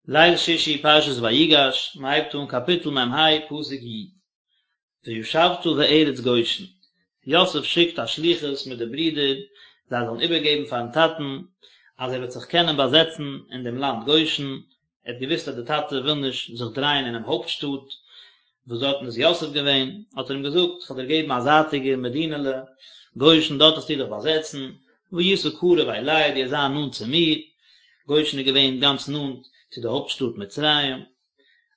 ליל שישי פרשת ויגש, מען הייבט אן קאפיטל מ ה פסוק י. וישבת בארץ גושן, יוסף שיקט א שליחות מיט די ברידער זיי זאלן איבערגעבן פארן טאטן אז ער וועט זיך קענען באזעצן אין דעם לאנד גושן, ער האט געוואוסט אז די טאטע וויל נישט זיך דרייען אינעם הויפט שטאט וואס דארטן איז יוסף געווען, האט ער אים געזאגט, כ'וועל דיר געבן א זייטיגע מדינה'לע, גושן, דארט וועסטו דיך באזעצן, והיית קרוב אלי, דו וועסט זיין נאנט צו מיר, גושן איז געווען גאנץ נאנט צו די הויפט שטאט מצרים,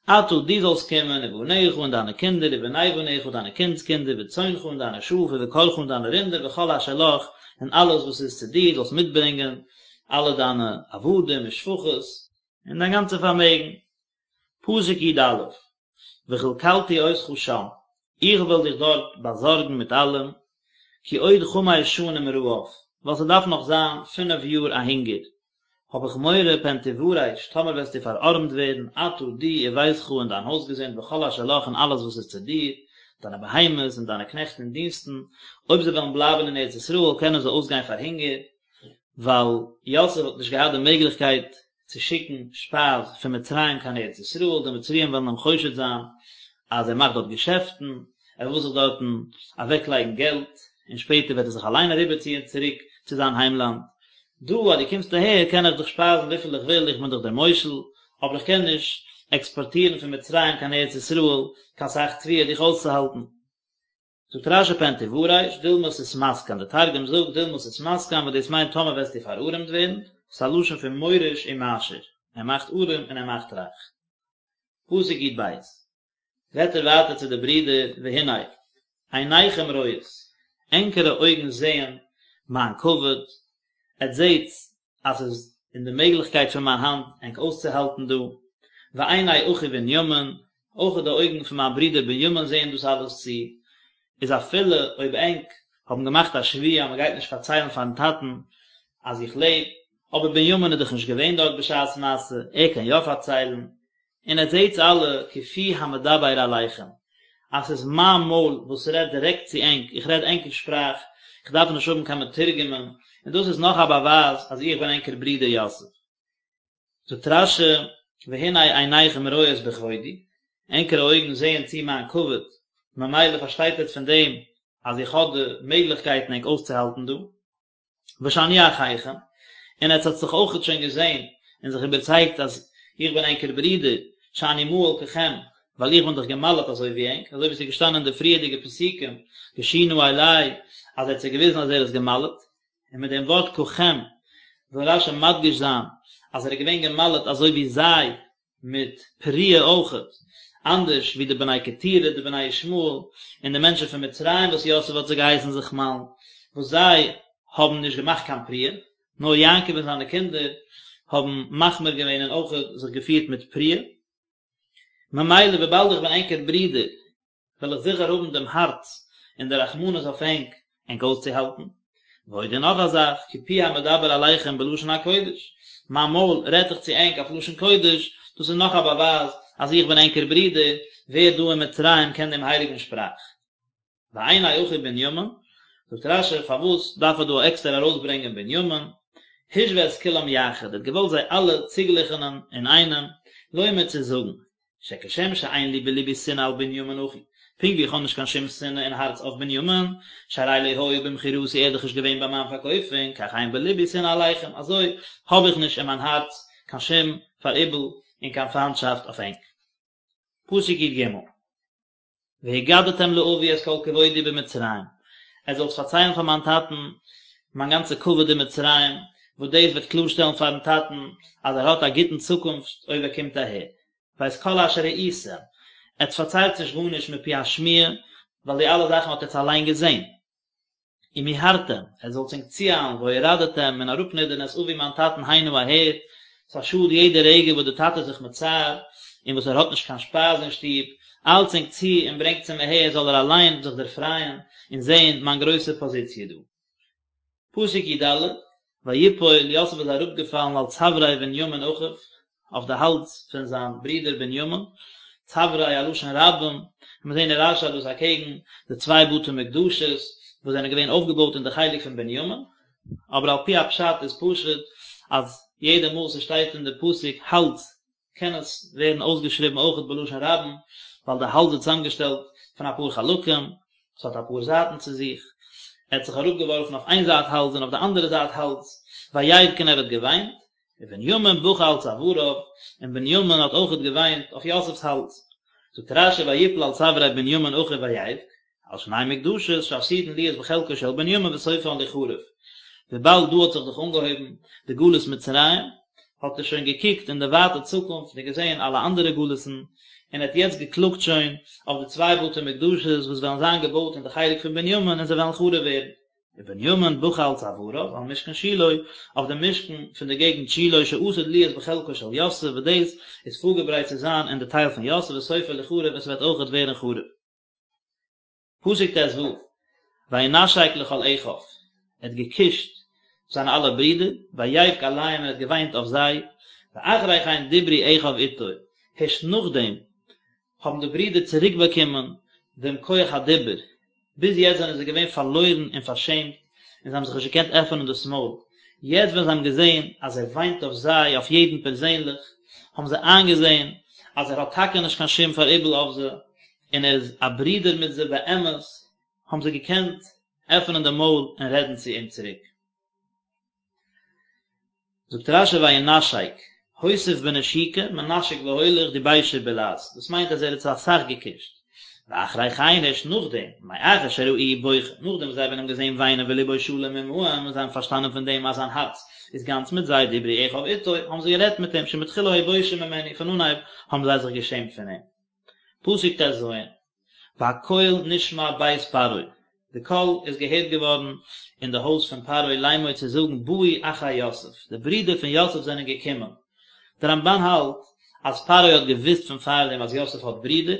אתה, דו זאלסט קומען, ובניך און דיינע קינדער, ובני בניך דיינע קינדס קינדער, וצאנך און דיינע שאף, ובקרך און דיינע רינדער, וכל אשר לך, און אלעס וואס איז צו דיר, זאלסט מיטברענגען אלע דיינע עבדים ושפחות, און דיין גאנצע פארמעגן. פסוק י א, וכלכלתי אותך שם, איך וועל דיך דארט באזארגן מיט אלעם, כי עוד חמש שנים רעב, ווייל ס'דארף נאך זיין פינף יאר א הונגער, האב איך מורא פן תורש, טאמער וועסטו פארארעמט ווערן, אתה, דו, וביתך און דיין הויזגעזינד וכל אשר לך און אלעס וואס איז צו דיר, דיינע בהמות און דיינע קנעכט און דינסטן, אויב זיי וועלן בלייבן אין ארץ ישראל קענען זיי אויסגיין פאר הונגער, ווייל יוסף האט נישט געהאט די מעגליכקייט צו שיקן שפייז פון מצרים קיין ארץ ישראל, די מצריים וועלן אים חושד זיין אז ער מאכט דארט געשעפטן, ער וויל זיך דארטן אוועקלייגן געלט, און שפעטער וועט ער זיך אליין אריבערציען צוריק צו זיין היימלאנד. דא אז דו קומסט אהער קען איך דיך שפייזן וויפיל איך וויל, איך בין דאך דער מושל, אבער איך קען נישט עקספארטירן פון מצרים קיין ארץ ישראל קיין סך תבואה דיך אויסצוהאלטן. זאגט רשי פן תורש, דילמא תתמסכן, די תרגום זאגט דילמא תתמסכן וואס דאס מיינט טאמער וועסטו פארארעמט ווערן, ס'איז א לשון פון מוריש ומעשיר, ער מאכט ארעם און ער מאכט רייך. פסוק י ב, רעדט ער ווייטער צו די ברידער, והנה, עיניכם רואות, ענקערע אויגן זעען מיין כבוד, עטס זעטס אז ס'איז אין די מעגליכקייט פון מיין האנט ענק אויסצוהאלטן דא, ועיני אחי בנימין, אויך די אויגן פון מיין ברודער בנימין זעען דאס אלעס צו, איז אפילו אויב ענק האבן געמאכט א שבועה אז מ'גייט נישט פארציילן פארן טאטן אז איך לעב, אבער בנימין איז דאך נישט געווען דארט בשעת מעשה, ער קען יא פארציילן, און עטס זעטס אלע כי פי המדבר אליכם, אז ס'איז מיין מויל וואס רעדט דירעקט צו ענק, איך רעד ענקער שפראך, איך דארף נישט האבן קיין מתורגמן, און דאס איז נאך א באווייז אז איך בין ענקער ברודער יוסף. זאגט רשי, והנה עיניכם רואות בכבודי, ענקערע אויגן זעען צו מיין כבוד, ממילא פארשטייט עטס פון דעם אז איך האב די מעגליכקייטן ענק אויסצוהאלטן דא. ושאני אחיכם, און עטס האט זיך אויכעט שוין געזען און זיך איבערצייגט אז איך בין ענקער ברודער, שאני מהול ככם, ווייל איך בין דאך געמל'עט אזוי ווי ענק, אזוי ווי עס איז געשטאנען אין די פריערדיגע פסוקים, גשו נא אלי, אז ער האט זיי געוויזן אז ער איז געמל'עט, און מיט דעם ווארט ככם וויל רשי מדגיש זיין אז ער איז געווען געמל'עט אזוי ווי זיי, מיט פריעה אויכעט, אנדערש ווי די בני קטורה, די בני ישמעאל, און די מענטשן פון מצרים וואס יוסף האט זיי געהייסן זיך מל'ן, וואס זיי האבן נישט געמאכט קיין פריעה, נאר יעקב און זיינע קינדער האבן מחמיר געווען און אויכעט זיך געפירט מיט פריעה. ממילא וויבאלד איך בין ענקער ברודער, וועל איך זיכער האבן דעם הארץ און די רחמנות אויף ענק, ענק אויסצוהאלטן. ועוד און נאך א זאך, כי פי המדבר אליכם בלשון הקודש, מיין מויל רעדט דאך צו ענק אויף לשון קודש, דאס איז נאך א באווייז אז איך בין ענקער ברודער, ווער דא אין מצרים קען דעם הייליגן שפראך? ועיני אחי בנימין, זאגט רשי, פארוואס דארף ער דא עקסטער ארויסברענגען בנימין? השווה את כולם יחד, ער האט געוואלט זיי אלע צוגליכענען אינאיינעם, לומר צו זאגן, שכשם שאין לי בלבי שנאה על בנימין אחי, פונקט ווי איך האב נישט קיין שום שנאה אין הארץ אויף בנימין, שהרי לא היה במכירתי ער איז דאך נישט געווען ביי מיין פארקויפונג, כך אין בלבי שנאה עליכם, אזוי האב איך נישט אין מיין הארץ קיין שום פאראיבל און קיין פיינטשאפט אויף ענק. פסוק י ג. והגדתם לאבי את כל כבודי במצרים, עטס זאלטס פארציילן פאר מיין טאטן מיין גאנצע כבוד אין מצרים, וואס דאס וועט קלארשטעלן פארן טאטן אז ער האט א גוטן צוקונפט אויב ער קומט אהער. ואת כל אשר ראיתם, עטס פארציילטס נישט גארנישט מפי השמועה, ווייל די אלע זאכן האט עטס אליין געזען. ומהרתם, עטס זאלטס ענק צואיילן, והורדתם, און אראפנידערן את אבי מיין טאטן הנה אהער, ס'איז א שאד יעדע רגע וואס די טאטע איז זיך מצער, און וואס ער האט נישט קיין שפייז אין שטוב, איילטס ענק צו און ברענגטס אים אהער זאל ער אליין זיך דערפרייען און זען מיין גרויסע פאזיציע דא. פסוק י ד, ויפול, יוסף איז אראפגעפאלן על צווארי בנימין אחיו, אויף די האלז פון זיין ברודער בנימין, צווארי א לשון רבים, און מיר זעהן אין רשי אז דאס אקעגן די צוויי בתי מקדשות וואס זענען געווען אויפגעבויט אין די חלק פון בנימין, אבער על פי הפשט איז פשוט אז יעדע מאל ס'שטייט אין די פסוק האלז. קען עס ווערן אויסגעשריבן אויכעט בלשון רבים, ווייל די האלז איז צוזאמגעשטעלט פון אפאר חלקים, עס האט אפאר זייטן צו זיך, ער האט זיך אראפגעווארפן אויף איין זייט האלז און אויף די אנדערע זייט האלז, ויבך און ער האט געוויינט, ובנימין בכה על צואריו, און בנימין האט אויכעט געוויינט אויף יוסף'ס האלז. זאגט רש"י ויפל על צווארי בנימין אחיו ויבך, על שני מקדשות שעתידין להיות בחלקו של בנימין וסופן ליחרב, וויבאלד דא האט זיך דאך אנגעהויבן די גלות מצרים, האט ער שוין געקוקט אין די ווייטע צוקונפט און געזען אלע אנדערע גלות'ן, און ער האט יעצט געקלאגט שוין אויף די צוויי בתי מקדשות וואס וועלן זיין געבויט אין די חלק פון בנימין און זיי וועלן חרוב ווערן. ובנימין בכה על צואריו, על משכן שילה, אויף דעם משכן פון די געגנט שילה שעתיד להיות בחלקו של יוסף וואס דאס איז פארגעברייט צו זיין אין די טייל פון יוסף וסופו ליחרב און ס'וועט אויכעט ווערן חרוב. פסוק ט"ו, וינשק לכל אחיו, ער האט געקושט זיינע אלע ברידער, ויבך עליהם און ער האט געוויינט אויף זיי, ואחרי כן דברו אחיו איתו, הערשט נאכדעם האבן די ברידער צוריק באקומען דעם כח הדיבור, ביז יעצט זענען זיי געווען פארלוירן און פארשעמט, און זיי האבן זיך נישט געקענט עפענען דאס מויל, יעצט ווען זיי האבן געזען אז ער וויינט אויף זיי, אויף יעדן פערזענליך, האבן זיי איינגעזען אז ער האט טאקע נישט קיין שום פאראיבל אויף זיי, און ער איז א ברודער מיט זיי באמת, האבן זיי געקענט עפענען די מויל און רעדן צו אים צוריק. זאגט רש"י וינשק, הוסיף בנשיקה, מנשק והולך דיבשו בלעז, דאס מיינט אז ער האט זיי אסאך געקושט. ואחרי כן הערשט נאכדעם, מאחר שראוהו בוכה, נאכדעם וואס זיי האבן אים געזען וויינען ולבו שלם עמהם און זיי האבן פארשטאנען פון דעם אז זיין הארץ איז גאנץ מיט זיי, דיברו אחיו איתו, האבן זיי גערעדט מיט אים, שמתחילה היו בושים ממנו, פון אנהייב האבן זיי זיך געשעמט פון אים. פסוק ט"ז, והקול נשמע בית פרעה, די קול איז געהערט געווארן אין די הויז פון פרעה לאמור צו זאגן באו אחי יוסף, די ברידער פון יוסף זענען געקומען. דער רמב"ן האלט אז פרעה האט געוואוסט פון פארדעם אז יוסף האט ברידער,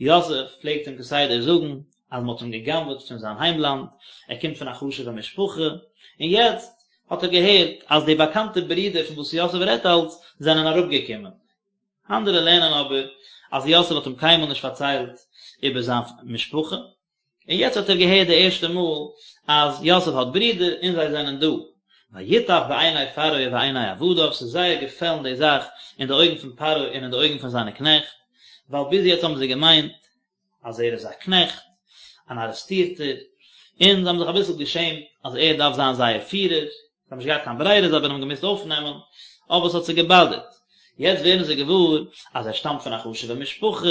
יוסף פלעגט אים כסדר זאגן אז מען האט אים גע'גנב'עט פון זיין היימלאנד, ער קומט פון א חשוב'ע משפחה, און יעצט האט ער געהערט אז די באקאנטע ברידער פון וואס יוסף רעדט אלץ זענען אראפגעקומען. אנדערע לערנען אבער אז יוסף האט אים קיינמאל נישט פארציילט איבער זיין משפחה, און יעצט האט ער געהערט די ערשטע מאל אז יוסף האט ברידער און זיי זענען דא. וייטב בעיני פרעה ובעיני עבדיו, ס'איז זייער געפעלן די זאך אין די אויגן פון פרעה און אין די אויגן פון זיינע קנעכט, ווייל ביז יעצט האבן זיי געמיינט אז ער איז א קנעכט, אן ארעסטירטער, און זיי האבן זיך אביסל געשעמט אז ער דארף זיין זייער פירער, זיי האבן נישט געהאט קיין ברירה, זיי האבן אים געמוזט אויפנעמען, אבער עס האט זיי געבאדערט. יעצט ווערן זיי געוואר אז ער שטאמט פון א חשוב'ע משפחה,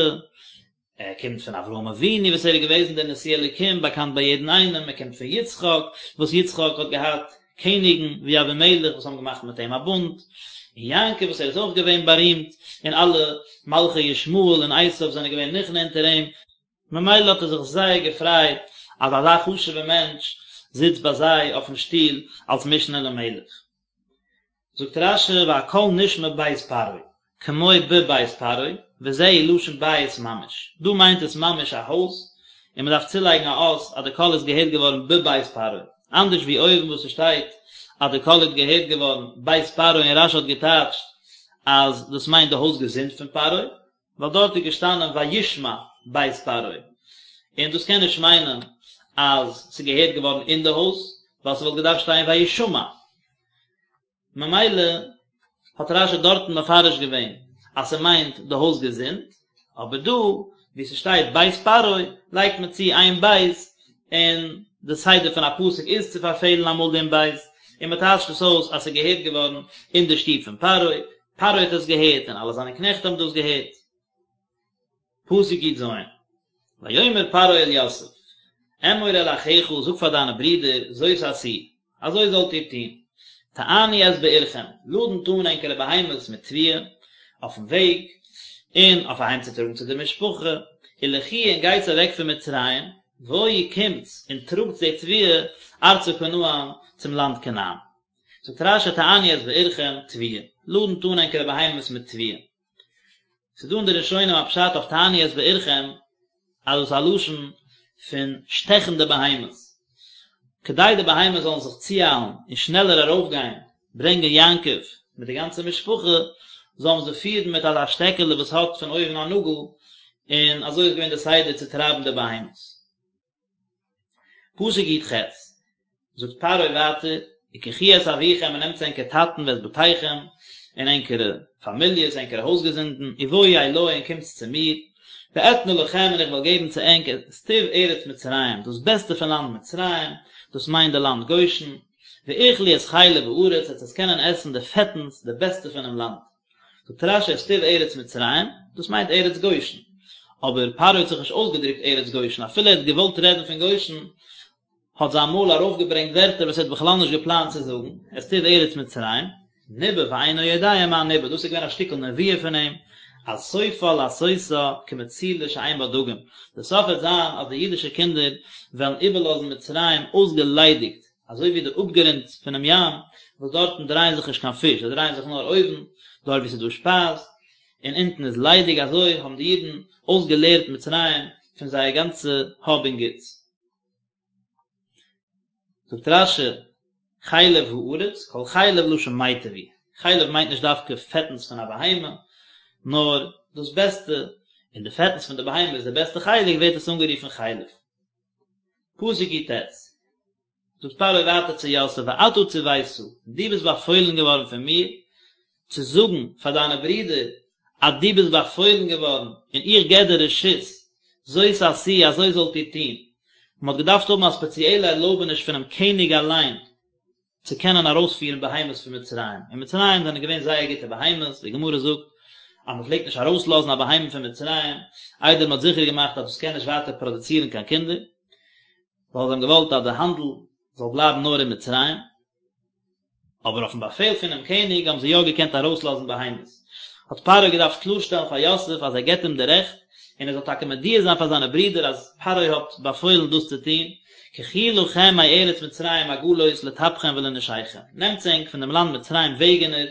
ער קומט פון אברהם אבינו וואס ער איז געוועזן דער נשיא אלוקים באקאנט ביי יעדן איינעם, ער קומט פון יצחק וואס יצחק האט געהאט קעניגן ווי אבימלך וואס האבן געמאכט מיט אים א בונד, און יעקב וואס ער איז אויך געווען בארימט, און אלע מלכי ישמעאל און עשיו זענען געווען נכנע אונטער אים, ממילא האט ער זיך זייער געפרייט אז אזא חשוב'ער מענטש זיצט ביי זיי אויפן שטול אלס משנה למלך. זאגט רש"י והקול נשמע בית פרעה, כמו בבית פרעה, וזהו לשון בית ממש, דא מיינט עס ממש א הויז, און מען דארף צולייגן א אות אז די קול איז געהערט געווארן בבית פרעה, אנדערש ווי אויבן וואס עס שטייט אז די קול איז געהערט געווארן בית פרעה און רש"י האט געטייטשט אז דאס מיינט די הויז געזינד פון פרעה, ווייל דארט איז געשטאנען וישמע בית פרעה, און דאס קען נישט מיינען אז ס'איז געהערט געווארן אין די הויז, ווייל ס'וואלט געדארפט שטיין וישמע. ממילא האט רש"י דארטן מפרש געווען אז ס'מיינט די הויז געזינד, אבער דא וואו ס'שטייט בית פרעה לייגט מען צו איין בית, און די סדר פון א פסוק איז צו פארפעלן אמאל דעם בית, און מ'טייטשט עס אויס אז ס'איז געהערט געווארן אין די שטוב פון פרעה, פרעה האט עס געהערט און אלע זיינע קנעכט האבן דאס געהערט. פסוק י"ז, ויאמר פרעה אל יוסף, אמור אל אחיך, זאג פאר דיינע ברידער, זאת עשו, אזוי זאלט איר טון, טענו את בעירכם, לאדנט אן ענקערע בהמות מיט תבואה, אויפן וועג, און אויף אהיימצוטראגן צו די משפחה, ולכו און גייטס אוועק פון מצרים, בואו קומטס און טראגטס די תבואה ארצה כנען, צום לאנד כנען. זאגט רש"י טענו את בעירכם, תבואה, לאדנט אן ענקערע בהמות מיט תבואה. ס'איז דא אין די ראשונים א פשט אויף טענו את בעירכם אז דאס איז א לשון פון שטעכן די בהמות, כדי די בהמות זאלן זיך צואיילן און שנעלער ארויפגיין ברענגען יעקב מיט די גאנצע משפחה, זאל מען זיי פירן מיט אזא שטעקעלע וואס האט פון אויבן א נאגל, און אזוי איז געווען די סדר צו טרייבן די בהמות. פסוק י"ח, זאגט פרעה ווייטער, וקחו את אביכם און נעמטס ענקער טאטן ואת בתיכם, און ענקערע פאמיליעס, ענקערע הויזגעזינדן, ובואו אלי און קומטס צו מיר, ואתנה לכם און איך וועל געבן צו ענק את טוב ארץ מצרים, דאס בעסטע פון לאנד מצרים, דאס מיינט די לאנד גושן, ואכלו את חלב הארץ, עטס וועטס קענען עסן די פעטנס, די בעסטע פונעם לאנד. זאגט רש"י את טוב ארץ מצרים, דאס מיינט ארץ גושן. אבער פרעה האט זיך נישט אויסגעדרוקט ארץ גושן, אפילו ער האט געוואלט רעדן פון גושן, האט זיין מויל ארויפגעברענגט ווערטער וואס ער האט בכלל נישט געפלאנט צו זאגן, את טוב ארץ מצרים, ניבא ואינו יודע מה ניבא, דאס איז געווען א שטיקל נבואה פון אים, אז סופה לעשותה כמצולה שאין בה דגים, די סוף וועט זיין אז די אידישע קינדער וועלן איבערלאזן מצרים אויסגעליידיגט, אזוי ווי די אפגרונט פונעם ים, וואס דארטן דרייען זיך נישט קיין פיש, זיי דרייען זיך נאר אויבן, דארט וואו ס'איז דא שפייז, און אונטן איז ליידיג, אזוי האבן די אידן אויסגעלערט מצרים פון זייער גאנצע האב און גוטס. זאגט רש"י, חלב הארץ, כל חלב לשון מיטב הוא, חלב מיינט נישט דווקא פעטנס פון א בהמה, נאר דאס בעסטע, און די פעטנס פון די בהמה איז די בעסטע חלק, ווערט עס אנגערופן חלב. פסוק י"ט, זאגט פרעה ווייטער צו יוסף ואתה צוית, דו ביסט באפוילן געווארן פון מיר צו זאגן פאר דיינע ברידער אז דו ביסט באפוילן געווארן און איך געב דיר רשות, זאת עשו אזוי זאלט איר טון. מען האט געדארפט האבן א ספעציעלע ערלויבעניש פונעם קעניג אליין צו קענען ארויספירן בהמות פון מצרים. אין מצרים זענען געווען זייער גוטע בהמות, די גמרא זאגט אז מען פלעגט נישט ארויסלאזן א בהמה פון מצרים איידער מען האט זיכער געמאכט אז דאס קען נישט ווייטער פראדוצירן קיין קינדער, ווייל זיי האבן געוואלט אז די האנדל זאל בלייבן נאר אין מצרים. אבער אויפן באפעל פונעם קעניג האבן זיי יא געקענט ארויסלאזן בהמות. האט פרעה געדארפט קלארשטעלן פאר יוסף אז ער געבט אים די רעכט, און ער זאל טאקע מודיע זיין פאר זיינע ברידער אז פרעה האט באפוילן דאס צו טון, קחו לכם מארץ מצרים עגלות לטפכם ולנשיכם, נעמטס ענק פון דעם לאנד מצרים וועגענער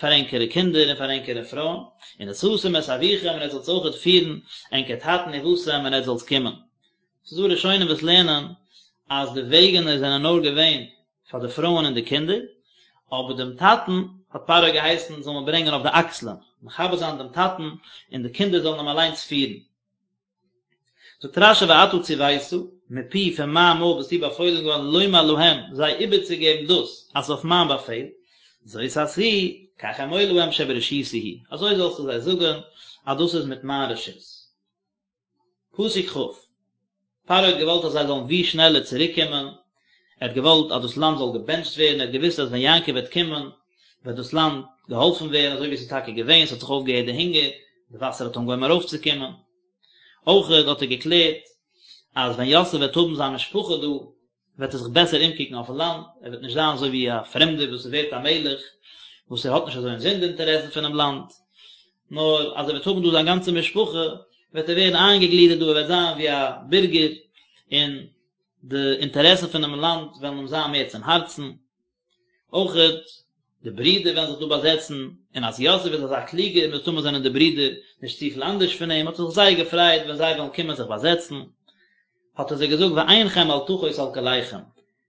פאר ענקערע קינדער און פאר ענקערע פרויען, ונשאתם את אביכם און עטס זאלטס אויכעט פירן ענקער טאטן ובאתם און עטס זאלטס קומען. ס'איז דא ראשונים וואס לערנען אז די וועגענער זענען נאר געווען פאר די פרויען און די קינדער, אבער דעם טאטן האט פרעה געהייסן זאל מען ברענגען אויף די אקסלען, מכבד זיין דעם טאטן, און די קינדער זאלן אים אליינס פירן. זאגט רש"י ואתה צוית, מפי פון מיין מויל ביסטו באפוילן געווארן לומר להם, זיי איבערצוגעבן דאס, אז אויף מיין באפעל, זאת עשו, כך אמור להם שברשותי הוא, אזוי זאלסטו זיי זאגן, אז דאס איז מיט מיין רשות. פסוק כ', פרעה האט געוואלט אז זיי זאלן ווי שנעלער צוריק קומען, ער האט געוואלט אז דאס לאנד זאל געבענטשט ווערן, ער האט געוואוסט אז ווען יעקב וועט קומען וועט דאס לאנד געהאלפן ווערן, אזוי ווי עס איז טאקע געווען, עס האט זיך אויפגעהערט די הונגער, די וואסער האט אנגעהויבן ארויפצוקומען. אויכעט האט ער געקלערט אז ווען יוסף וועט האבן זיין משפחה דא, וועט ער זיך בעסער אומקוקן אויפן לאנד, ער וועט נישט זיין אזוי ווי א פרעמדער וואס ווערט א מלך, וואס ער האט נישט אזוי אינזין די אינטערעסן פונעם לאנד, נאר אז ער וועט האבן דא זיין גאנצע משפחה, וועט ער ווערן איינגעגלידערט דא, ער וועט זיין ווי א בירגער, און די אינטערעסן פונעם לאנד וועלן אים זיין מער צום הארצן. אויכעט די ברידער וועלן זיך דא באזעצן, און אז יוסף איז אזא קלוגער, מסתמא זענען די ברידער נישט צופיל אנדערש פון אים, האט ער זיך זייער געפרייט ווען זיי וועלן קומען זיך באזעצן. האט ער זיי געזאגט ועינכם אל תחוס על כליכם,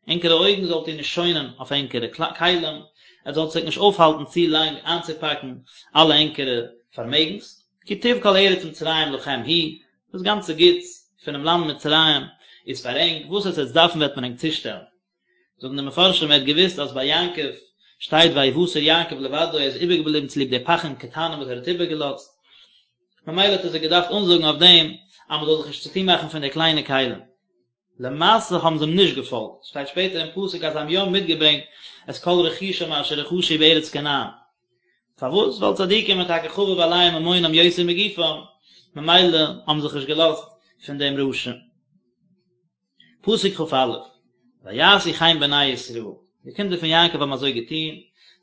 ענקערע אויגן זאלט איר נישט שוינען אויף ענקערע כלים, עטס זאלט זיך נישט אויפהאלטן צו לאנג איינצופאקן אלע ענקערע פארמעגנס, כי טוב כל ארץ מצרים לכם הוא, דאס גאנצע גוטס פונעם לאנד מצרים איז פאר ענק, וואס עטס וועטס דארפן וועט מען ענק צושטעלן. זאגן די מפרשים ער האט געוואוסט אז ביי יעקב שטייט ויותר יעקב לבדו ער איז איבערגעבליבן צוליב די פכים קטנים וואס ער האט איבערגעלאזט, ממילא האט ער זיי געדארפט אנזאגן אויף דעם אז מען זאל זיך נישט צוטון מאכן פון די קליינע כלים. למעשה האבן זיי אים נישט געפאלגט, שטייט שפעטער אין פסוק אז זיי האבן יא מיטגעברענגט את כל רכושם אשר רכשו בארץ כנען. פארוואס? ווייל צדיקים איז טאקע חביב עליהם ממונם יותר מגופם, ממילא האבן זיך נישט געלאזט פון דעם רשע. פסוק כ"א, ויעשו כן בני ישראל, די קינדער פון יעקב האבן אזוי געטון,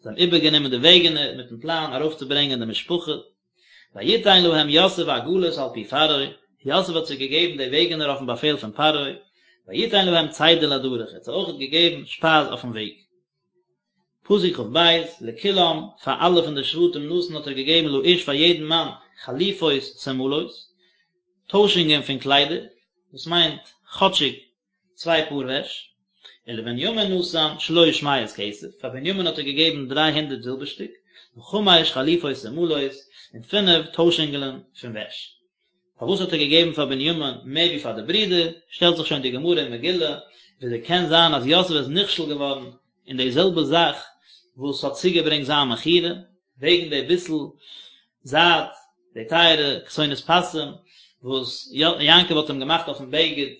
זיי האבן איבערגענומען די וועגענער מיטן פלאן ארויפצוברענגען די משפחה, ויתן להם יוסף עגלות על פי פרעה, יוסף האט זיי געגעבן די וועגענער אויפן באפעל פון פרעה, ויתן להם צידה לדרך, ער האט זיי אויכעט געגעבן שפייז אויפן וועג. פסוק כ"ב, לכולם, פאר אלע פון די שבטים נתן האט ער געגעבן לאיש פאר יעדן מאן חליפות שמלות, טוישונגען פון קליידער, דאס מיינט כאטשיג צוויי פאר וועש, ולבנימין נתן שלש מאות כסף, פאר בנימין האט ער געגעבן דריי הונדערט זילבערשטיק, וחמש חליפות שמלות, און פינף טוישונגען פון וועש. פארוואס האט ער געגעבן פאר בנימין מער ווי פאר די ברידער, שטעלט זיך שוין די גמרא אין מגילה, וויאזוי קען זיין אז יוסף איז נכשל געווארן אין די זעלבע זאך וואס האט צוגעברענגט זיין מכירה? וועגן די ביסל זייד, די טייערע כתונת פסים וואס יעקב האט אים געמאכט אויפן בגד,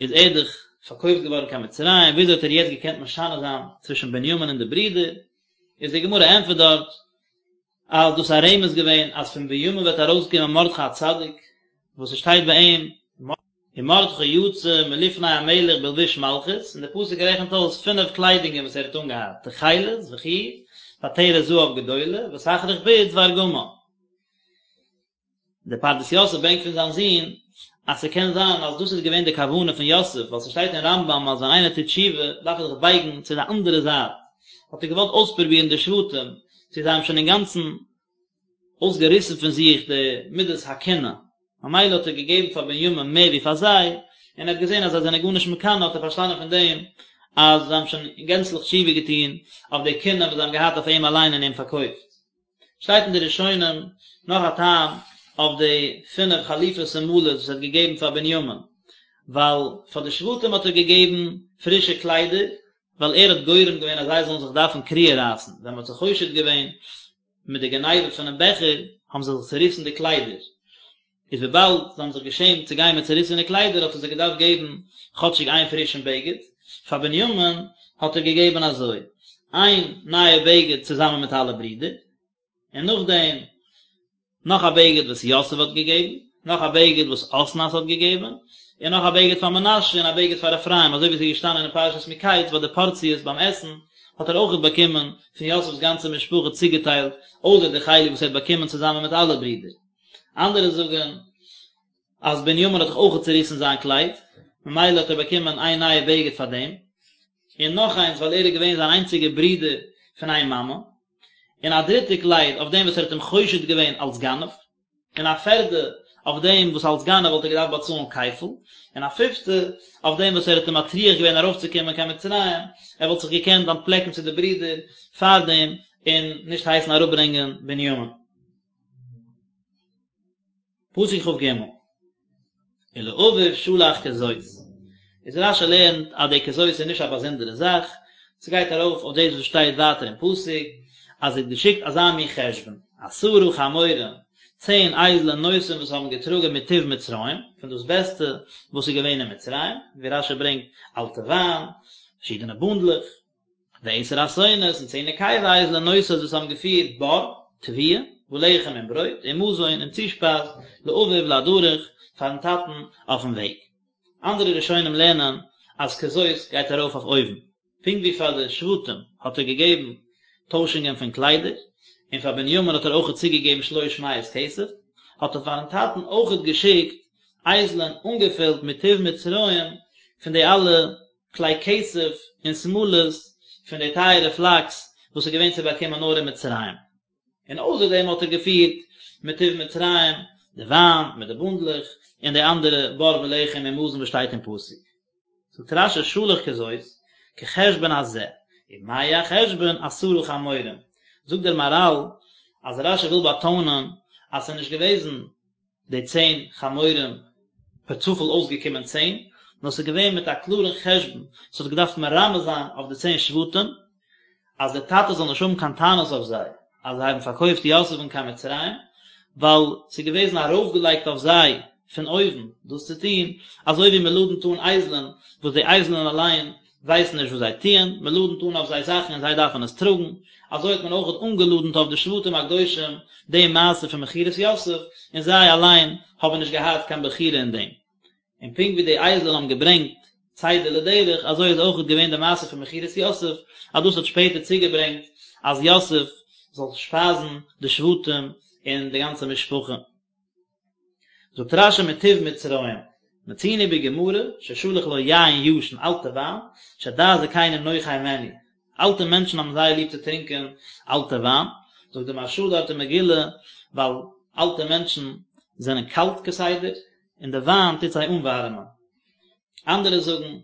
איז ער דאך פארקויפט געווארן קיין מצרים, וויאזוי האט ער יעצט געקענט משנה זיין צווישן בנימין און די ברידער? איז די גמרא ענטפערט דארט אז דאס איז א רמז געווען אז פון בנימין וועט ארויסקומען מרדכי הצדיק, וואס עס שטייט ביי אים, ומרדכי יצא מלפני המלך בלבוש מלכות, און דער פסוק רעכנט אויס פינף קליידונגען וואס ער האט אנגעהאט, תכלת וחור, ועטרת זהב גדולה, ותכריך בוץ וארגמן. דער פרדס יוסף ברענגט פון זיין זון, אז ס'קען זיין אז דאס איז געווען די כוונה פון יוסף, ווייל ס'שטייט אין רמב"ם אז ווען איינער טוט תשובה דארף ער זיך בייגן צו די אנדערע זייט, האט ער געוואלט אויספרובירן די שבטים, צו זיי האבן שוין אינגאנצן אויסגעריסן פון זיך די מידת הקנאה, ממילא האט ער געגעבן פאר בנימין מער ווי פאר זיי, און ער האט געזען אז זיי זענען גארנישט מקנא האט ער פארשטאנען פון דעם אז זיי האבן שוין גענצליך תשובה געטון אויף די קנאה וואס זיי האבן געהאט אויף אים אליין און אים פארקויפט. שטייט אין די ראשונים נאך א טעם אויף די פינף חליפות שמלות וואס ער האט געגעבן פאר בנימין, ווייל פאר די שבטים האט ער געגעבן פרישע קליידער, ווייל ער האט גורם געווען אז זיי זאלן זיך דארפן קריעה רייסן, ווען מען האט זיי חושד געווען מיט די גניבה פונעם בעכער, האבן זיי זיך צוריסן די קליידער, איז וויבאלד זיי האבן זיך געשעמט צו גיין מיט צוריסענע קליידער האט ער זיי געדארפט געבן כאטשיג איין פרישן בגד, פאר בנימין האט ער געגעבן אזוי, איין נייע בגד צוזאמען מיט אלע ברידער, און נאכדעם נאך א בגד וואס יוסף האט געגעבן, נאך א בגד וואס אסנת האט געגעבן, און נאך א בגד פאר מנשה און א בגד פאר אפרים, אזוי ווי עס איז געשטאנען אין פרשת מקץ ביי די פארציעס ביים עסן, האט ער אויכעט באקומען פון יוסף'ס גאנצע משפחה צוגעטיילט, אויסער די חלק וואס ער האט באקומען צוזאמען מיט אלע ברידער. אנדערע זאגן אז בנימין האט דאך אויכעט צוריסן זיין קלייד, ממילא האט ער באקומען איין נייע בגד פאר דעם, און נאך איינס ווייל ער איז געווען זיין איינציגער ברודער פון איין מאמע, און א דריטע קלייד אויף דעם וואס ער האט אים חושד געווען אלס גנב, און א פערדע אויף דעם וואס אלס גנב וואלט ער געדארפט באצאלן כפל, און א פיפטע אויף דעם וואס ער האט אים מטריח געווען ארויפצוקומען קיין מצרים, ער וואלט זיך געקענט אנטפלעקן צו די ברידער פאר דעם און נישט הייסן אראפברענגען בנימין. פסוק כג, ולאביו שלח כזאת, איז רשי לערנט אז די כזאת איז נישט א באזונדערע זאך, ס'גייט ארויף אויף דאס וואס שטייט ווייטער אין פסוק, אז ער האט געשיקט אזא מין חשבון, עשרה חמורים, צען אייזלען נושאים וואס האבן געטראגען מטוב מצרים, פון דאס בעסטע וואס איז געווען אין מצרים, ווי רשי ברענגט אלטע וויין, פארשידענע בונדלעך. ועשר אתונות און צען נקבה אייזלען נושאות וואס האבן געפירט בר, תבואה, ולחם און ברויט, ומזון און צושפייז, לאביו לדרך, פארן טאטן אויפן וועג. אנדערע ראשונים לערנען אז כזאת גייט ארויף אויף אויבן, פונקט ווי פאר די שבטים האט ער געגעבן טוישונגען פון קליידער, און פאר בנימין האט ער אויכעט צוגעגעבן שלוש מאות כסף, האט ער פארן טאטן אויכעט געשיקט אייזלען אנגעפילט מטוב מצרים פון די אלע כלי כסף און שמלות פון די טייערע פלאקס וואס איז געווען צו באקומען נאר אין מצרים, און אויסער דעם האט ער געפירט מטוב מצרים די וויין מיט די בונדלעך און די אנדערע בר ולחם און מזון וואס שטייט אין פסוק. זאגט רשי שלח כזאת, כחשבון הזה, ומהו החשבון עשרה חמורים, זאגט דער מהרל אז רשי וויל באטאנען אז ס'איז נישט געוועזן די צען חמורים פער צופאל אויסגעקומען צען, נאר ס'איז געווען מיט א קלארן חשבון, ס'האט געדארפט מרמז זיין אויף די צען שבטים, אז דער טאטע זאל נישט האבן קיין טענות אויף זיי, אז זיי האבן פארקויפט יוסף'ן קיין מצרים, ווייל ס'איז געוועזן ארויפגעלייגט אויף זיי פון אויבן דאס צו טון, אזוי ווי מ'לאדנט אן אייזלען, וואס די אייזלען אליין ווייסן נישט וואס זיי טוען, מען לאדנט אן אויף זיי זאכן און זיי דארפן עס טראגן, אזוי האט מען אויך אנגעלאדנט אויף די שבטים הקדושים די מעשה פון מכירת יוסף, און זיי אליין האבן נישט געהאט קיין בחירה אין דעם. און פונקט ווי די אייזלען האבן געברענגט צידה לדרך, אזוי איז אויך געווען די מעשה פון מכירת יוסף, אז דאס האט שפעטער צוגעברענגט אז יוסף זאל שפייזן די שבטים און די גאנצע משפחה. זאגט רשי מטוב מצרים, מצינו בגמרא ששלח לו יין ישן אלטע וויין, שדעת זקנים נוחה הימנו, אלטע מענטשן האבן זייער ליב צו טרינקען אלטע וויין, זאגט די מהרש"א דארט אין מגילה, ווייל אלטע מענטשן זענען קאלט כסדר, און די וויין טוט זיי אנווארעמען. אנדערע זאגן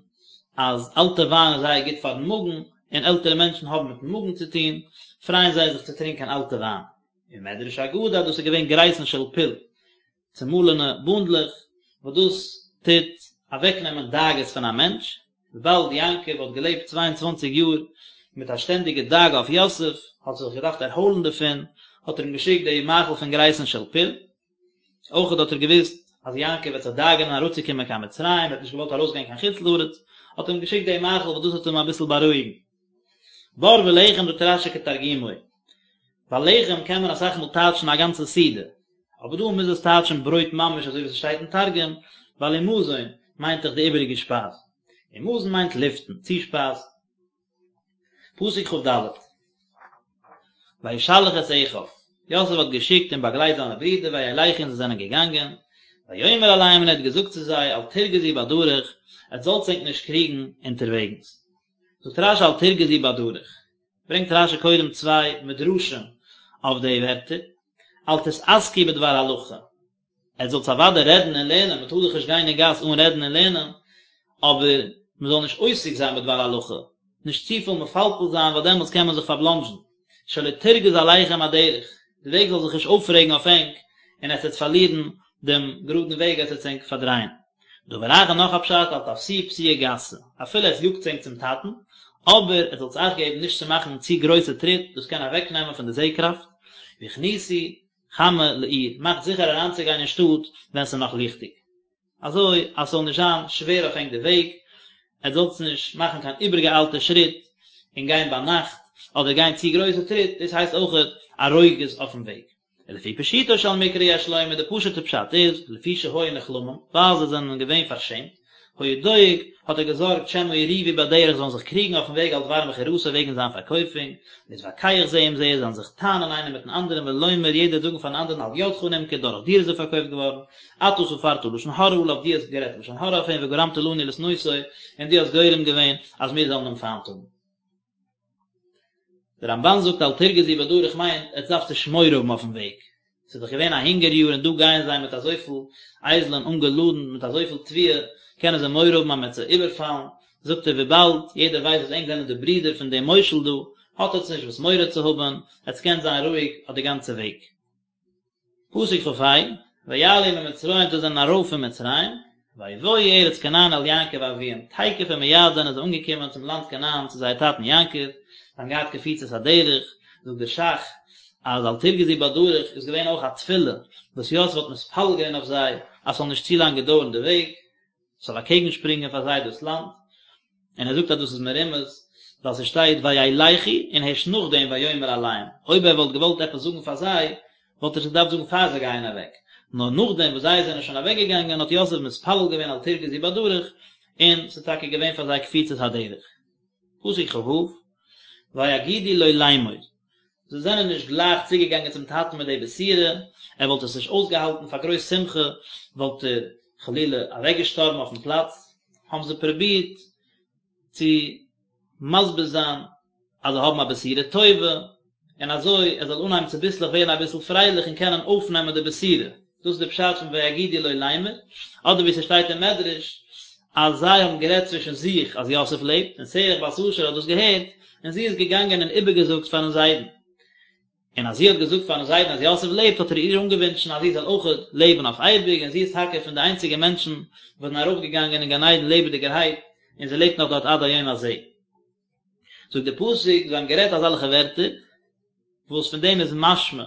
אז אלטע וויין איז זייער גוט פארן מאגן, און עלטערע מענטשן האבן מיטן מאגן צו טון, פרייען זיי זיך צו טרינקען אלטע וויין. ומדרש אגדה אז דאס איז געווען גריסין של פול, צומאלענע בונדלעך, וואס דאס טוט אוועקנעמען דאגות פון א מענטש, וויבאלד יעקב האט געלעבט צוויי און צוואנציג יאר מיט א שטענדיגע דאגה אויף יוסף, האט ער זיך געדארפט ערהוילן דערפון, האט ער אים געשיקט די מאכל פון גרייסן של פול. אויכעט האט ער געוואוסט אז יעקב וועט זיך דאגה'נען אראפצוקומען קיין מצרים, ער האט נישט געוואלט ארויסגיין קיין חוץ לארץ, האט ער אים געשיקט די מאכל וואס דאס האט אים אביסל בארואיגן. בר ולחם זאגט רש"י כתרגומו, ווייל לחם קען מען אסאך מאל טייטשן א גאנצע סעודה, אבער דא מוז עס טייטשן ברויט ממש אזוי ווי ס'שטייט אין תרגום, ווייל ומזון מיינט דאך די איבעריגע שפייז, און מזון מיינט לפתן, צושפייז. פסוק כ"ד, וישלח את אחיו, יוסף האט געשיקט און באגלייט זיינע ברידער וילכו און זיי זענען געגאנגען, ויאמר אליהם און ער האט געזאגט צו זיי אל תרגזו בדרך, עטס זאלטס ענק נישט קריגן אונטערוועגנס. זאגט רש"י אל תרגזו בדרך, ברענגט רש"י קודם צוויי מדרשים אויף די ווערטער, אל תתעסקו בדבר הלכה, עטס זאלטס אוודאי רעדן און לערנען, מען טאר דאך נישט גיין אין גאס אן רעדן און לערנען, אבער מען זאל נישט עוסק זיין בדבר הלכה, נישט צופיל מפלפל זיין ווייל דעמאלטס קען מען זיך פארבלאנדזשן, שלא תרגז עליכם הדרך, די וועג זאל זיך נישט אויפרעגן אויף ענק און עטס וועט פארלירן דעם גראדן וועג, עטס וועטס ענק פארדרייען. דבר אחר נאך א פשט, אל תפסיעו פסיעה גסה, אפילו עטס יאגטס ענק צום טאטן, אבער עטס זאלטס אכט געבן נישט צו מאכן צו גרויסע טריט, דאס קען אוועקנעמען פון די זע-קראפט, והכניסו חמה לעיר, מאכט זיכער אריינצוגיין אין שטאט ווען ס'איז נאך ליכטיג, אזוי אז ס'זאל נישט זיין שווער אויף ענק די וועג, עטס זאלטס נישט מאכן קיין איבערגעאיילטע שריט און גיין ביינאכט, אדער גיין צו גרויסע טריט, דאס הייסט אויכעט א רוגז אויפן וועג. ולפי פשוטו של מקרא יש לומר, די פשוט'ע פשט איז, לפי שהיו נכלמים, ווייל זיי זענען געווען פארשעמט, היה דואג, האט ער געזארגט שמא יריבו בדרך זאלן זיך קריגן אויפן וועג על דבר מכירתו וועגן זיין פארקויפונג, להתווכח זה עם זה, זאלן זיך טענה'ן איינער מיטן אנדערן ולומר יעדער זאגן פארן אנדערן על ידך נמכר דורך דיר איז ער פארקויפט געווארן, אתה ספרת לשון הרע עליו דו האסט גערעדט לשון הרע אויף אים וגרמת לנו לשנאותו און דו האסט גורם געווען אז מיר זאלן אים פיינט האבן. דער רמב"ן זאגט אל תרגזו בדרך מיינט עטס דארפטס נישט מורא האבן אויפן וועג, ס'איז דאך געווען א הונגער יאר און דא גייען זיי מיט אזויפיל אייזלען אנגעלאדנט מיט אזויפיל תבואה, קענען זיי מורא האבן אז מ'וועט זיי איבערפאלן, זאגט ער וויבאלד יעדער ווייסט אז ענק זענען די ברידער פון דעם מושל דא, האט עטס נישט וואס מורא צו האבן, עטס קענט זיין רואיג אויף די גאנצע וועג. פסוק כ"ה, ויעלו ממצרים זיי זענען ארויף פון מצרים, ויבואו ארץ כנען אל יעקב אביהם, תיכף ומיד זענען זיי אנגעקומען צום לאנד כנען צו זייער טאטן יעקב, זיי האבן געהאט קפיצת הדרך, זאגט דער ש"ך אז אל תרגזו בדרך איז געווען אויך א תפילה וואס יוסף האט מתפלל געווען אויף זיי אז ס'זאל נישט צו לאנג געדויערן די וועג, ס'זאל אקעגן שפרינגען פאר זיי דאס לאנד, און ער זאגט אז דאס איז מרומז ווייל ס'שטייט וילכו און הערשט נאכדעם ויאמר אליהם, אויב ער וואלט געוואלט עפעס זאגן פאר זיי וואלט ער עס געדארפט זאגן פאר זיי גייען אוועק, נאר נאכדעם וואס זיי זענען שוין אוועק געגאנגען האט יוסף מתפלל געווען אל תרגזו בדרך, און ס'איז טאקע געווען פאר זיי קפיצת הדרך. פסוק כ"ו, ויגידו לו לאמור, זיי זענען נישט גלייך צוגעגאנגען צום טאטן מיט די בשורה, ער וואלט עס נישט אויסגעהאלטן פאר גרויס שמחה וואלט ער חלילה אוועקגעשטארבן אויפן פלאץ, האבן זיי פרובירט צו מסביר זיין אז זיי האבן א בשורה טובה, און אזוי ער זאל אנהייבן צוביסלעך ווערן אביסל פרייליך און קענען אויפנעמען די בשורה, דאס איז די פשט פון ויגידו לו לאמר, אדער ווי ס'שטייט אין מדרש אז זיי האבן גערעדט צווישן זיך אז יוסף לעבט, און שרח בת אשר האט דאס געהערט, און זי איז געגאנגען און איבערגעזאגט פארן זיידן. און אז זי האט געזאגט פארן זיידן אז יוסף לעבט האט ער איר אנגעווינטשן אז זי זאל אויכעט לעבן אויף אייביג, און זי איז טאקע פון די איינציגע מענטשן וואס זענען ארויפגעגאנגען אין גן עדן לעבעדיגערהייט, און זי לעבט נאך דארט עד היום הזה. זאגט דער פסוק, זיי האבן גערעדט אזעלכע ווערטער, וואס פון דעם איז משמע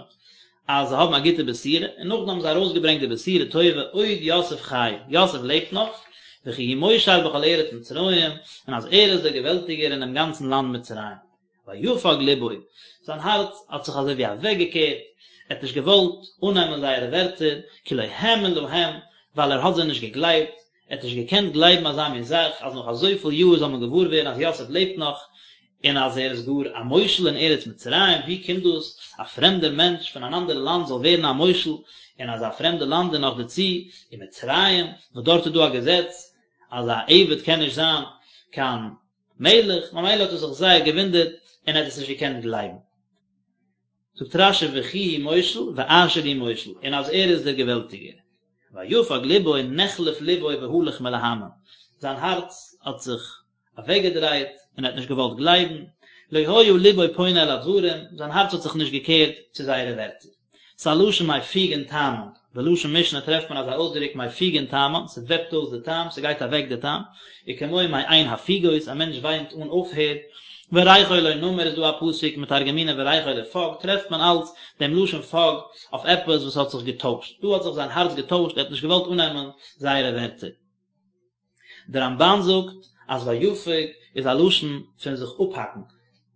אז זיי האבן א גוטע בשורה, און נאכדעם האבן זיי ארויסגעברענגט די בשורה טובה, עוד יוסף חי, יוסף לעבט נאך, וכי הוא מושל בכל ארץ מצרים, און אז ער איז דער געוועלטיגער אינעם גאנצן לאנד מצרים. ויפג לבו, זיין הארץ האט זיך אזוי ווי אוועקגעקערט, ער האט נישט געוואלט אננעמען זייערע ווערטער, כי לא האמין להם, ווייל ער האט זיי נישט געגלייבט, ער האט נישט געקענט גלייבן אזא מין זאך, אז נאך אזויפיל יאר זאל מען געוואר ווערן אז יוסף לעבט נאך, און אז ער איז גאר א מושל אין ארץ מצרים, ווי קומט דאס א פרעמדער מענטש פון אן אנדערע לאנד זאל ווערן א מושל אין אזא פרעמדע לאנד און נאך דערצו אין מצרים, וואס דארט איז דא א געזעץ אז א עבד קען נישט זיין קיין מלך, ממילא האט ער זיך זייער געוואונדערט און ער האט עס נישט געקענט גלייבן. זאגט רש"י וכי הוא מושל ואשר הוא מושל, און אז ער איז דער געוועלטיגער. ויפג לבו נחלף לבו והלך מלהאמין, זיין הארץ האט זיך אוועקגעדרייט און ער האט נישט געוואלט גלייבן, לא היה לבו פונה אל הדברים, זיין הארץ האט זיך נישט געקערט צו זייערע ווערטער. ס'איז א לשון מפיגין טעמן, בלשון משנה טרעפט מען אזא אויסדרוק מפיגין טעמן, ס'וועפט אויס די טעם, ס'גייט אוועק די טעם, וכמו מעין הפוגות, א מענטש וויינט אן אויפהער. וריחו לנמר איז דא א פסוק מתרגמינן וריחו לפג, טרעפט מען אלץ דעם לשון פג אויף עפעס וואס האט זיך געטוישט, דא האט זיך זיין הארץ געטוישט, ער האט נישט געוואלט אננעמען זייערע ווערטער. דער רמב"ן זאגט אז ויפג איז א לשון פון זיך אפהאקן,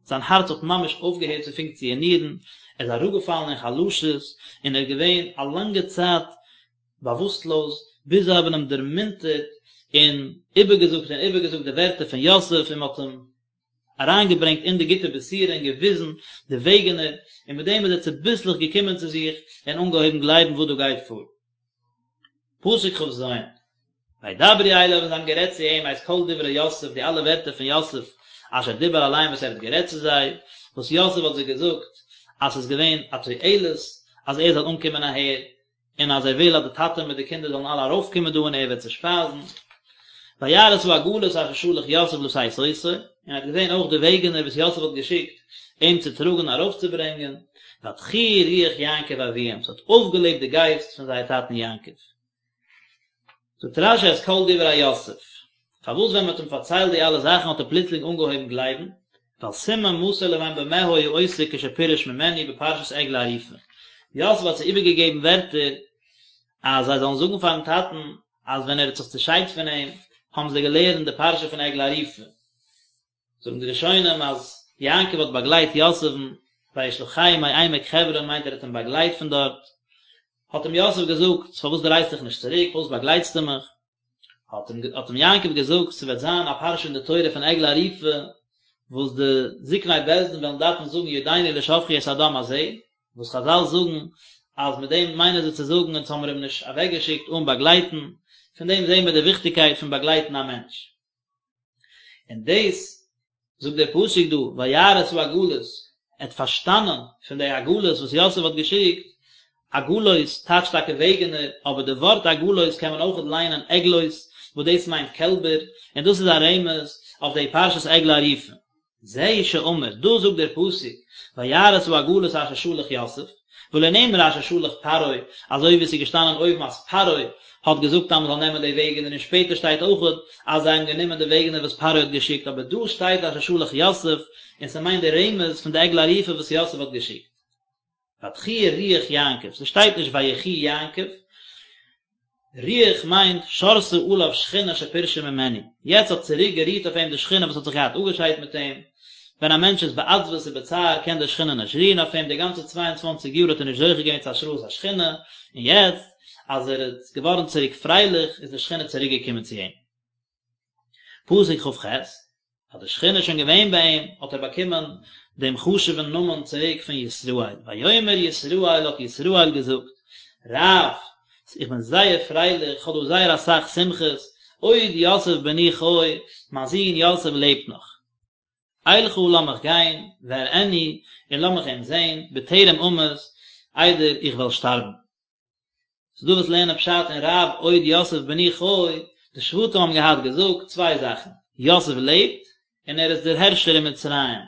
זיין הארץ האט ממש אויפגעהערט צו פונקציאנירן, ער איז אראפגעפאלן אין חלשות און ער איז געווען א לאנגע צייט באוואוסטלאז, ביז זיי האבן אים דערמונטערט און איבערגעזאגט און איבערגעזאגט די ווערטער פון יוסף און מען האט אים אריינגעברענגט אין די גוטע בשורה און געוויזן די וועגענער, און מיט דעם איז ער צוביסלעך געקומען צו זיך און אנגעהויבן גלייבן וואס דא גייט פאר. פסוק כ"ז, וידברו אליו און זיי האבן גערעדט צו אים את כל דברי יוסף די אלע ווערטער פון יוסף אשר דיבר אליהם וואס ער האט גערעדט צו זיי, וואס יוסף האט זיי געזאגט אז ס'איז געווען א תועלת אז ער זאל אנקומען אהער, און אז ער וויל אז די טאטע מיט די קינדער זאלן אלע ארויפקומען דא און ער וועט זיי שפייזן. וירא את העגלות אשר שלח יוסף לשאת אותו, און ער האט געזען אויך די וועגענער וואס יוסף האט געשיקט אים צו טראגן ארויפצוברענגען, ותחי רוח יעקב אביהם, ס'האט אויפגעלעבט די גייסט פון זייער טאטן יעקב. זאגט רש"י את כל דברי יוסף, פארוואס ווען מען האט אים פארציילט די אלע זאכן האט ער פלוצלינג אנגעהויבן גלייבן, ווייל סימן מסר להם במה היה עוסק כשפירש ממנו בפרשת עגלה ערופה, יוסף האט זיי איבערגעגעבן ווערטער אז זיי זאלן זאגן פארן טאטן אז ווען ער האט זיך צעשיידט פון אים האבן זיי געלערנט די פרשה פון עגלה ערופה. זאגן די ראשונים אז יעקב האט באגלייט יוסף'ן, וישלחהו מעמק חברון מיינט ער האט אים באגלייט פון דארט, האט אים יוסף געזאגט פארוואס דרייסט דיך נישט צוריק, פארוואס באגלייטסטו מיך? האט אים האט אים יעקב געזאגט ס'וועט זיין א פרשה אין די תורה פון עגלה ערופה וואס די זקני בית דין וועלן דארפן זאגן ידינו לא שפכו את הדם הזה, וואס חזל זאגן אז מיט דעם מיינען זיי צו זאגן אונז האמיר אים נישט אוועקגעשיקט אן באגלייטן, פון דעם זעהן מיר די וויכטיגקייט פון באגלייטן א מענטש. און דאס זאגט דער פסוק דא, וירא את העגלות, ער האט פארשטאנען פון די עגלות וואס יוסף האט געשיקט, עגלות טייטשט טאקע וועגענער, אבער די ווארט עגלות קען מען אויכעט ליינען עגלות, וואס דאס מיינט קעלבער, און דאס איז א רמז אויף די פרשת עגלה ערופה. זהו שאמר, דא זאגט דער פסוק, וירא את העגלות אשר שלח יוסף, ולא נאמר אשר שלח פרעה, אזוי ווי עס איז געשטאנען אויבן אז פרעה האט געזאגט אז מען זאל נעמען די וועגענער און שפעטער שטייט אויכעט אז זיי האבן גענומען די וועגענער וואס פרעה האט געשיקט אבער דא שטייט אשר שלח יוסף און ס'מיינט די רמז פון די עגלה ערופה וואס יוסף האט געשיקט. ותחי רוח יעקב, ס'שטייט נישט ויחי יעקב, רוח מיינט שרתה עליו שכינה שפירשה ממנו, יעצט האט צוריק גערוהט אויף אים די שכינה וואס האט זיך געהאט אפגעשיידט מיט אים, ווען א מענטש איז בעצבות ובצער קען די שכינה נישט רוען אויף אים, די גאנצע צוויי און צוואנציג יאר האט ער נישט זוכה געווען צו השראת השכינה, און יעצט אז ער איז געווארן צוריק פרייליך איז די שכינה צוריק געקומען צו אים. פסוק כ"ח, אז די שכינה איז שוין געווען ביי אים, האט ער באקומען דעם חשוב'ן נאמען צוריק פון ישראל. ויאמר ישראל האט ישראל געזאגט, רב, איך בין זייער פרייליך, איך האב דא זייער אסאך שמחות, עוד יוסף בני חי, מיין זון יוסף לעבט נאך. אלכה לאמיך גיין, ואראנו, און לאמיך אים זען, בטרם אמות, איידער איך וועל שטארבן. ס'איז דא וואס לערנען פשט אין רב עוד יוסף בני חי, די שבטים האבן געהאט געזאגט צוויי זאכן, יוסף לעבט, און ער איז דער הערשער אין מצרים.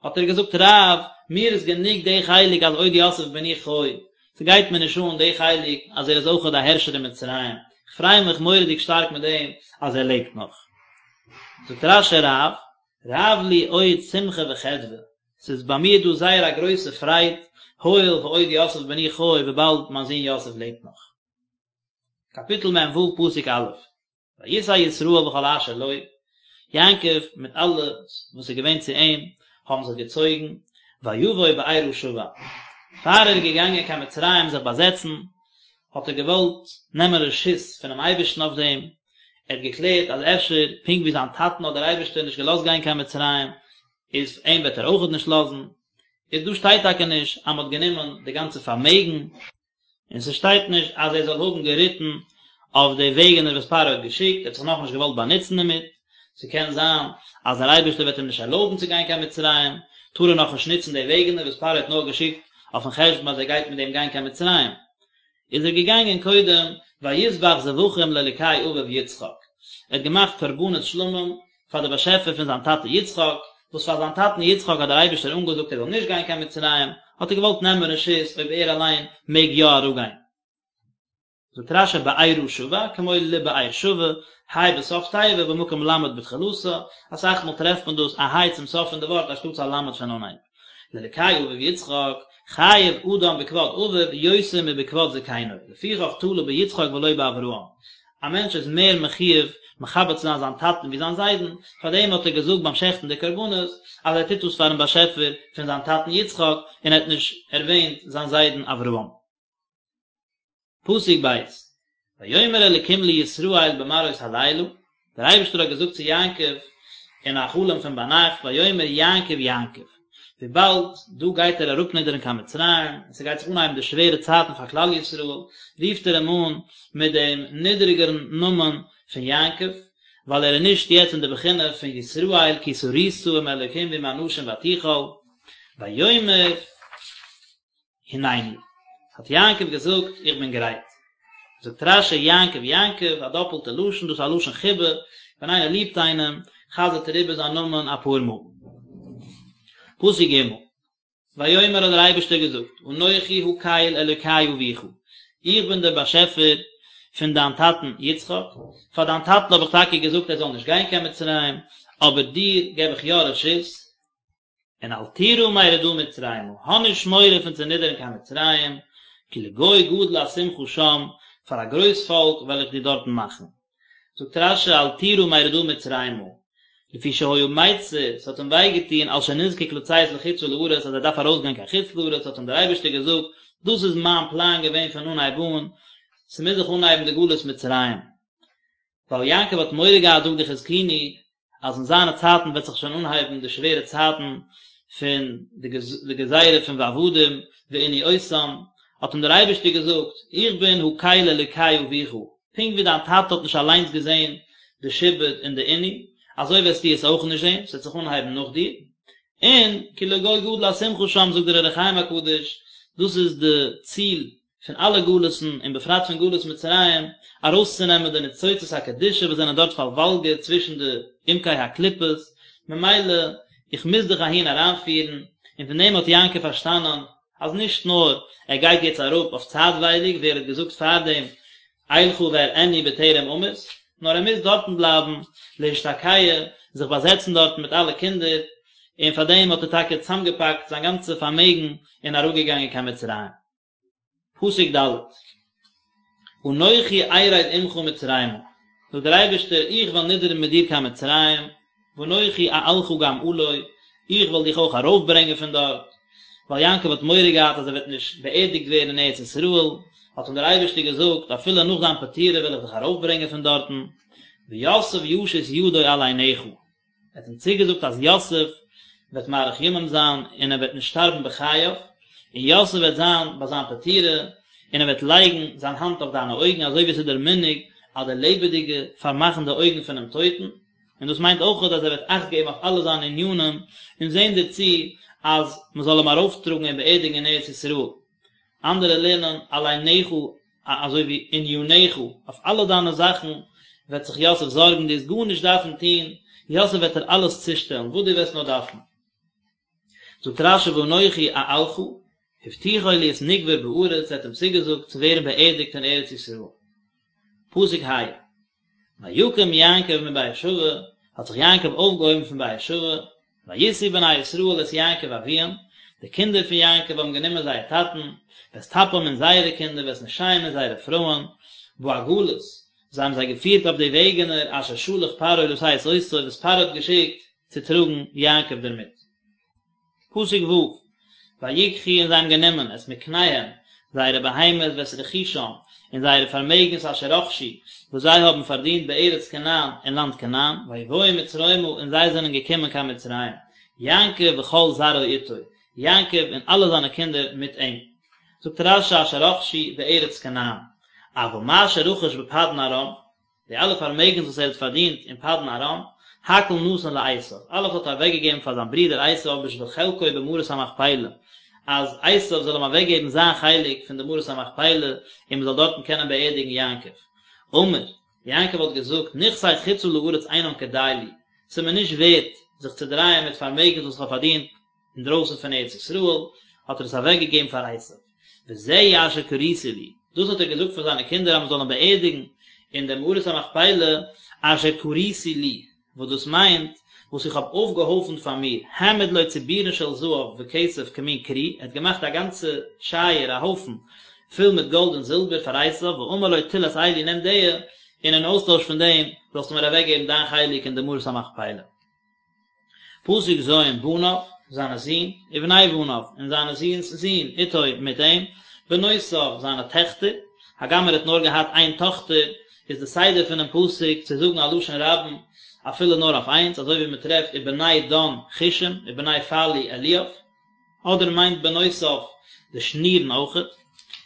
האט ער געזאגט רב, מיר איז גענוג די חלק אז עוד יוסף בני חי, ס'גייט מיר נישט אן די חלק אז ער איז אויכעט א הערשער אין מצרים, כ'פריי מיך מורא'דיג שטארק מיט דעם אז ער לעבט נאך. זאגט רש"י רב, רב לי עוד שמחה וחדוה, ס'איז ביי מיר דא זייער א גרויסע פרייד, הואיל ועוד יוסף בני חי וויבאלד מיין זון יוסף לעבט נאך. קאפיטל מ"ו פסוק א', ויסע ישראל וכל אשר לו, יעקב מיט אלעס וואס איז געווען צו אים האבן זיך געצויגן, ויבוא בארה שבע, פאר ער איז געגאנגען קיין מצרים זיך באזעצן, האט ער געוואלט נעמען רשות פונעם אייבערשטן אויף דעם, ער האט געקלערט אז אפשר פונקט ווי זיין טאטן האט דער אייבערשטער נישט געלאזט גיין קיין מצרים, איז אים וועט ער אויכעט נישט לאזן, איז דא שטייט טאקע נישט אז מען האט גענומען די גאנצע פארמעגן, און ס'שטייט נישט אז ער זאל האבן געריטן אויף די וועגענער וואס פרעה האט געשיקט, ער האט זיך נאכנישט געוואלט באנוצן דערמיט, ס'קען זיין אז דער אייבערשטער וועט אים נישט ערלויבן צו גיין קיין מצרים, טאר ער נאכנישט נוצן די וועגענער וואס פרעה האט נאר געשיקט אויפן חשבון אז ער גייט מיט דעם גיין קיין מצרים. איז ער געגאנגען קודם ויזבח זבחים לאלוקי אביו יצחק, ער האט געמאכט קרבנות שלמים פאר די באשעפער פון זיין טאטע יצחק, וואס פאר זיין טאטן יצחק האט דער אייבערשטער אנגעזאגט ער זאל נישט גיין קיין מצרים, האט ער געוואלט נעמען רשות אויב ער אליין מעג יא אראפגיין. זאגט רש"י בארה שבע, כמו לבאר שבע, ה' בסוף תיבה במקום ל' בתחילתה, אסאך מאל טרעפט מען דאס א ה' צום סוף פון די ווארט אנשטאטס א ל' פון אנהייב. לאלקי אביו יצחק, חייב אדם בכבוד אביו יותר מבכבוד זקנו, לפיכך תלה ביצחק ולא באברהם. א מענטש איז מער מחויב מכבד צו זיין זיין טאטן ווי זיין זיידן, פארדעם האט ער געזאגט ביים שעכטן די קרבנות אז ער טוט דאס פארן באשעפער פון זיין טאטן יצחק, און ער האט נישט ערווענט זיין זיידן אברהם. פסוק ב', ויאמר אלקים לישראל במראות הלילה, דער אייבערשטער האט געזאגט צו יעקב אין א חלום פון ביינאכט, ויאמר יעקב יעקב, וויבאלד דא גייט ער אראפנידערן קיין מצרים, און ס'גייט זיך אנהייבן די שווערע צייטן פאר כלל ישראל, רופט ער אים אן מיט דעם נידעריגערן נאמען פון יעקב, ווייל ער איז נישט יעצט אין די בחינה פון ישראל כי שרית עם אלקים ועם אנשים ותוכל, ויאמר. הנני, האט יעקב געזאגט, איך בין גרייט. זאגט רש"י, יעקב יעקב, א דאפלטע לשון, דאס איז א לשון חיבה, ווען איינער ליבט איינעם, חזר'ט ער איבער זיין נאמען אפאר מאל. פסוק ג', ויאמר האט דער אייבערשטער געזאגט, אנכי הקל אלוקי אביך, איך בין דער באשעפער פון דיין טאטן יצחק, פאר דיין טאטן האב איך טאקע געזאגט ער זאל נישט גיין קיין מצרים, אבער דיר געב איך יא רשות, און אל תירא מרדה מצרימה, האב נישט מורא פון צו נידערן קיין מצרים, כי לגוי גדול אשימך שם, פאר א גרויס פאלק וועל איך דיר דארטן מאכן. זאגט רש"י אל תירא מרדה מצרימה, לפי שהיה מיצר, ס'האט אים וויי געטון על שנזקק לצאת לחוצה לארץ אז ער דארף ארויסגיין קיין חוץ לארץ, האט אים דער אייבערשטער געזאגט, דאס איז מיין פלאן געווען פון אנהייב אן, ס'מוז זיך אנהייבן די גלות מצרים. ווייל יעקב האט מורא געהאט זאגט די חזקוני אז אין זיינע צייטן וועט זיך שוין אנהייבן די שווערע צייטן פון די גזירה פון ועבדום וענו אותם, האט אים דער אייבערשטער געזאגט, איך בין הקל אלוקי אביך, פונקט ווי דיין טאטע האט נישט אליינס געזען די שעבוד און די עינוי, אזוי וועסטו עס אויך נישט זען, עס וועט זיך אנהייבן נאך דיר, און כי לגוי גדול אשימך שם זאגט דער אור החיים הקדוש, דאס איז די ציל פון אלע גלות'ן און בפרט פון גלות מצרים, ארויסצונעמען די ניצוצות הקדושה וואס זענען דארט פארוואלגערט צווישן די עמקי הקליפות, ממילא איך מוז דיך אהין אריינפירן, און פון דעם האט יעקב פארשטאנען אז נישט נאר ער גייט יעצט אראפ אויף צייטווייליג ווי ער האט געזאגט פארדעם אלכה ואראנו בטרם אמות, נאר ער מוז דארטן בלייבן להשתקע, זיך באזעצן דארטן מיט אלע קינדער, און פאר דעם האט ער טאקע צוזאמגעפאקט זיין גאנצע פארמעגן און אראפגעגאנגען קיין מצרים. פסוק ד' אנכי ארד עמך מצרימה, זאגט דער אייבערשטער איך וועל נידערן מיט דיר קיין מצרים, ואנכי אעלך גם עלה, איך וועל דיך אויך ארויפברענגען פון דארט, ווייל יעקב האט מורא געהאט אז ער וועט נישט באערדיגט ווערן אין ארץ ישראל, האט אים דער אייבערשטער געזאגט, אפילו נאך דיין פטירה וועל איך דיך ארויפברענגען פון דארטן, ויוסף ישית ידו על עיניך. ער האט אים צוגעזאגט אז יוסף וועט מאריך ימים זיין און ער וועט נישט שטארבן בחייו, און יוסף וועט זיין ביי זיין פטירה, און ער וועט לייגן זיין האנט אויף דיינע אויגן אזוי ווי עס איז דער מנהג אז די לעבעדיגע פארמאכן די אויגן פונעם טויטן, און דאס מיינט אויך אז ער וועט אכט געבן אויף אלע זיינע ענינים און זען דערצו אז מען זאל אים ארויפטראגן און באערדיגן אין ארץ ישראל. אנדערע לערנען על עיניך אזוי ווי עניניך, אויף אלע דיינע זאכן וועט זיך יוסף זארגן, דו וועסט גארנישט דארפן טון, יוסף וועט דיר אלעס צושטעלן וואס דו וועסט נאר דארפן. זאגט רש"י ואנכי אעלך, הבטיחו להיות נקבר בארץ, ער האט אים צוגעזאגט צו ווערן באערדיגט אין ארץ ישראל. פסוק ה, ויקם יעקב מבאר שבע, האט זיך יעקב אויפגעהויבן פון באר שבע, וישאו בני ישראל את יעקב אביהם, די קינדער פון יעקב האבן גענומען זייער טאטן, ואת טפם און זייערע קינדער, ואת נשיהם און זייערע פרויען, בעגלות, זיי האבן זיי געפירט אויף די וועגענער אשר שלח פרעה לשאת אותו, וואס פרעה האט געשיקט צו טראגן יעקב דערמיט. פסוק ו', ויקחו און זיי האבן גענומען את מקניהם, זייערע בהמות ואת רכושם, און זייערע פארמעגנס אשר רכשו, וואס זיי האבן פארדינט בארץ כנען, אין לאנד כנען, ויבואו מצרימה, און זיי זענען געקומען קיין מצרים, יעקב וכל זרעו איתו, יעקב און אלע זיינע קינדער מיט אים. זאגט רש"י אשר רכשו בארץ כנען, אבל מה שרכש בפדן ארם, די אלע פארמעגנס וואס ער האט פארדינט אין פדן ארם, הכל נתן לעשו, אלעס האט ער אוועקגעגעבן פאר זיין ברודער עשו בשביל חלקו במערת המכפלה, אז עשו זאל אים אוועקגעבן זיין חלק פון די מערת המכפלה און מען זאל דארטן קענען באערדיגן יעקב. אמר, יעקב האט געזאגט, נכסי חוצה לארץ אינם כדאי לי, ס'איז מיר נישט ווערט זיך צו דרייען מיט פארמעגנס וואס איך האב פארדינט אינדרויסן פון ארץ ישראל, האט ער עס אוועקגעגעבן פאר עשו. וזהו אשר קרית לי. דאס האט ער געזאגט פאר זיינע קינדער אז מען זאל אים באערדיגן אין דער מערת המכפלה, אשר כריתי לי, וואס דאס מיינט, וואס איך האב אויפגעהויפנט פאר מיר, העמיד לו צבורין של זהב וכסף כמין כרי, ער האט געמאכט א גאנצע שייער, א הויפן, פול מיט גאלד און זילבער פאר עשיו, ואמר לו טול את אלו נעם די, און אין אויסטויש פון דעם זאלסטו מיר אוועקגעבן דיין חלק אין די מערת המכפלה. פסוק ז' בניו, זיינע זין, ובני בניו, און זיינע זין'ס זין, איתו, מיט אים, בנותיו, זיינע טעכטער, הגם ער האט נאר געהאט איין טאכטער, איז די סדר פונעם פסוק צו זאגן א לשון רבים אפילו נאר אויף איינס, אזוי ווי מען טרעפט ובני דן חושים, ובני פלוא אליאב, אדער מיינט בנותיו די שנירן אויכעט,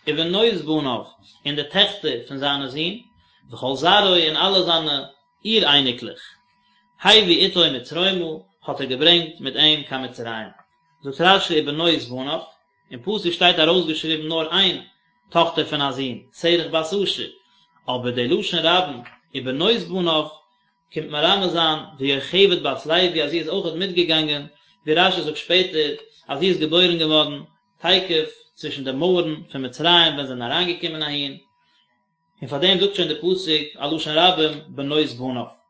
ובנות בניו, און די טעכטער פון זיינע זין, וכל זרעו, און אלע זיינע אור אייניקלעך. הביא איתו מצרימה, האט ער געברענגט מיט אים קיין מצרים. זאגט רש"י ובנות בניו, אין פסוק שטייט ארויסגעשריבן נאר איין טאכטער פון א זון, שרח בת אשר, אבער די לשון רבים ובנות בניו קומט מרמז זיין ויוכבד בת לוי אז זי איז אויכעט מיטגעגאנגען, ווי רש"י זאגט שפעטער אז זי איז געבוירן געווארן תיכף צווישן די מויערן פון מצרים ווען זיי זענען אריינגעקומען אהין, און פאר דעם זאגט שוין די פסוק א לשון רבים בנות בניו.